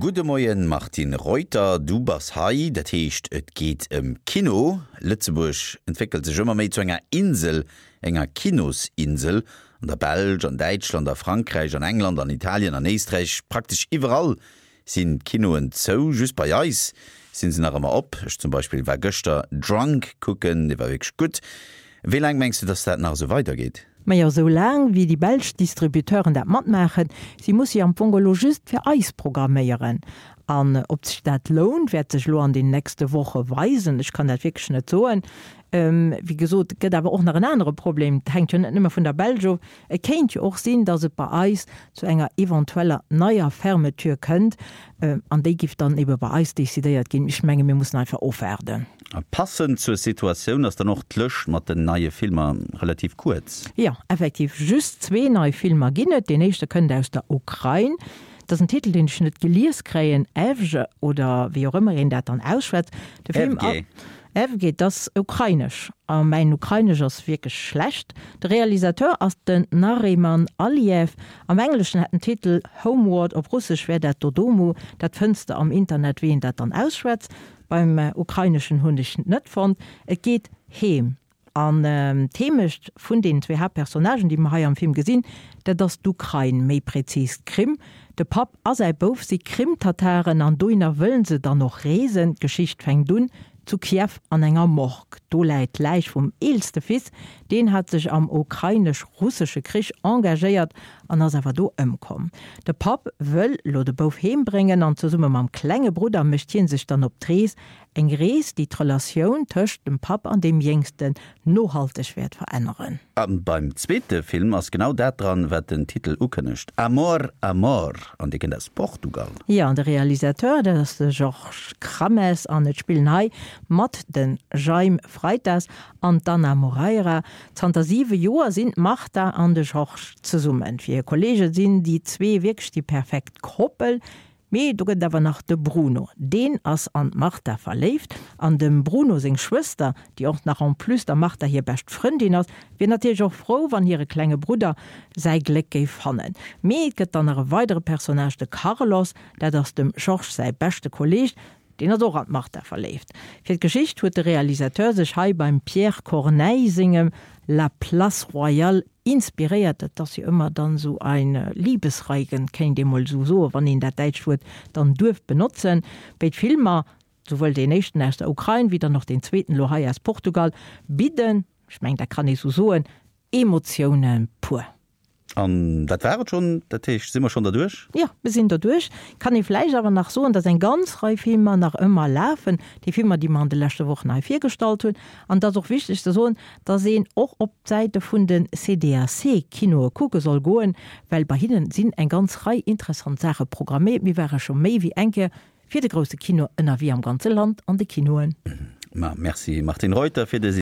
Gudde Moien Martine Reuter, du bass hei, dat heescht et geet ëm Kino. Lëtzebuerg entwéckelt sech ëmmer méi zu enger Insel, enger Kinosinsel. An der Belsch, an Däitschland, a Frankräich, an England, an Italien, an Éisträich, praktesch iwwerall sinn d'Kinoen zou. Just bei eis sinn se nach ëmmer op. Ech zum Beispill war gëschter Drunk kucken, dee war wierklech gutt. Wéi laang mengs du, dass dat nach esou weidergeet? Majo, sou laang wéi déi belsch Distributeuren dat matmaachen. Si musse jo am Fong elo just fir eis programméieren. An ob sech dat lount, wäert sech elo an den nächste Woche weisen. Ech kann dat wierklech net soen. Wéi gesot, et gëtt awer och nach en anere Problem, et hänkt jo net nëmme vun der Belsch of. Et kéint jo och sinn, datt et bei eis zu enger eventueller neier Fermeture kënnt, an déi giff dann ebe bei eis decidéiert ginn. Ech menge mir mussen einfach ofwaarden. A passend zur Situatioun ass dann och d'Lëscht mat den neie Filmer relativ kuerz. Jo, effektiv, just zwee nei Filmer ginn et. Deen éischte kënnt aus der Ukrain. Dat ass en Titel, deen ech net gelies kréien, Evge oder wéi och ëmmer een dat dann ausschwätzt. De Film. Evge. Evge, dat ass ukrainesch a mäin Ukrainesch ass wierklech schlecht. De Realisateur ass den Nariman Aliev. Am Engleschen hätt den Titel Homeward, op Russesch wär dat Dodomu, dat fënns de am Internet, wéi een dat dann ausschwätzt. Beim Ukraineschen hunn ech net fonnt. Et geet heem. An d'Heemecht vun deenen zwee Haaptpersonnagen, déi mer hei am Film gesinn, dat ass d'Ukrain, méi prezis d'Krim. De Papp a säi Bouf si Krim-Tataren an dohinner wëllen se dann och reesen. D'Geschicht fänkt un zu Kiew an enger Morgue. Do läit d'Läich vum eelste Fils, deen hat sech am ukrainesch-russesche Krich engagéiert an ass awer do ëmkomm. De Papp wëll lo de Bouf heem bréngen an zesumme mam klenge Brudder mécht hie sech dann op d'Rees Eng Rees, déi d'Relatioun tëscht dem Papp an deem Jéngsten nohalteg wäert veränneren. A beim zweete Film ass genau dat dran, wat den Titel ukënnegt, Amor, Amor, an dee kënnt aus Portugal. Jo, an de Realisateur, dat ass de Georges Crames an et spillen hei mat de Jaime Freitas an d'Ana Moreira. Zanter siwe Joer sinn d'Marta an de Georges zesummen. Fir hir Kolleege sinn déi zwee wierklech déi perfekt Koppel. Mee do gëtt et awer nach de Bruno. Deen ass an d'Martha verléift. An dem Bruno seng Schwëster, déi och nach en plus der Martha hir bescht Frëndin ass, wier natierlech och frou, wann hire klenge Brudder säi Gléck géif fannen. Mee et gëtt dann nach e weidere Personnage, de Carlos. Dat ass dem Georges säi beschte Kolleeg. Deen ass och an d'Martha verléift. Fir d'Geschicht huet de Realisateur sech hei beim Pierre Corneille sengem La Place Royale inspiréiert. Dat ass jo ëmmer dann esou ein Liebesreigen, kéint ee mol esou soen, wann een dat däitscht Wuert dann duerf benotzen. Béid Filmer, souwuel deen éischten aus der Ukrain, wéi dann och deen zweeten elo hei aus Portugal, bidden, ech mengen dat kann ee sou soen, Emotioune pur. An dat war et schonn? Dat heescht, si mer schonn derduerch? Jo, mir sinn derduerch. Kann ee vläicht awer nach soen, dass eng ganz Rei Filmer nach ëmmer lafen, déi Filmer, déi mer an de leschte Wochen hei virgestallt hunn. An et ass och wichteg ze soen, dass een och op d'Säite vun de CDAC-Kinoe kucke soll goen, well bei hinnen sinn eng ganz Rei interessant Saache programméiert. Mir ware scho méi wéi eng Kéier fir de grousse Kino ënnerwee am ganze Land an de Kinoen. Ma merci Martine Reuter fir des.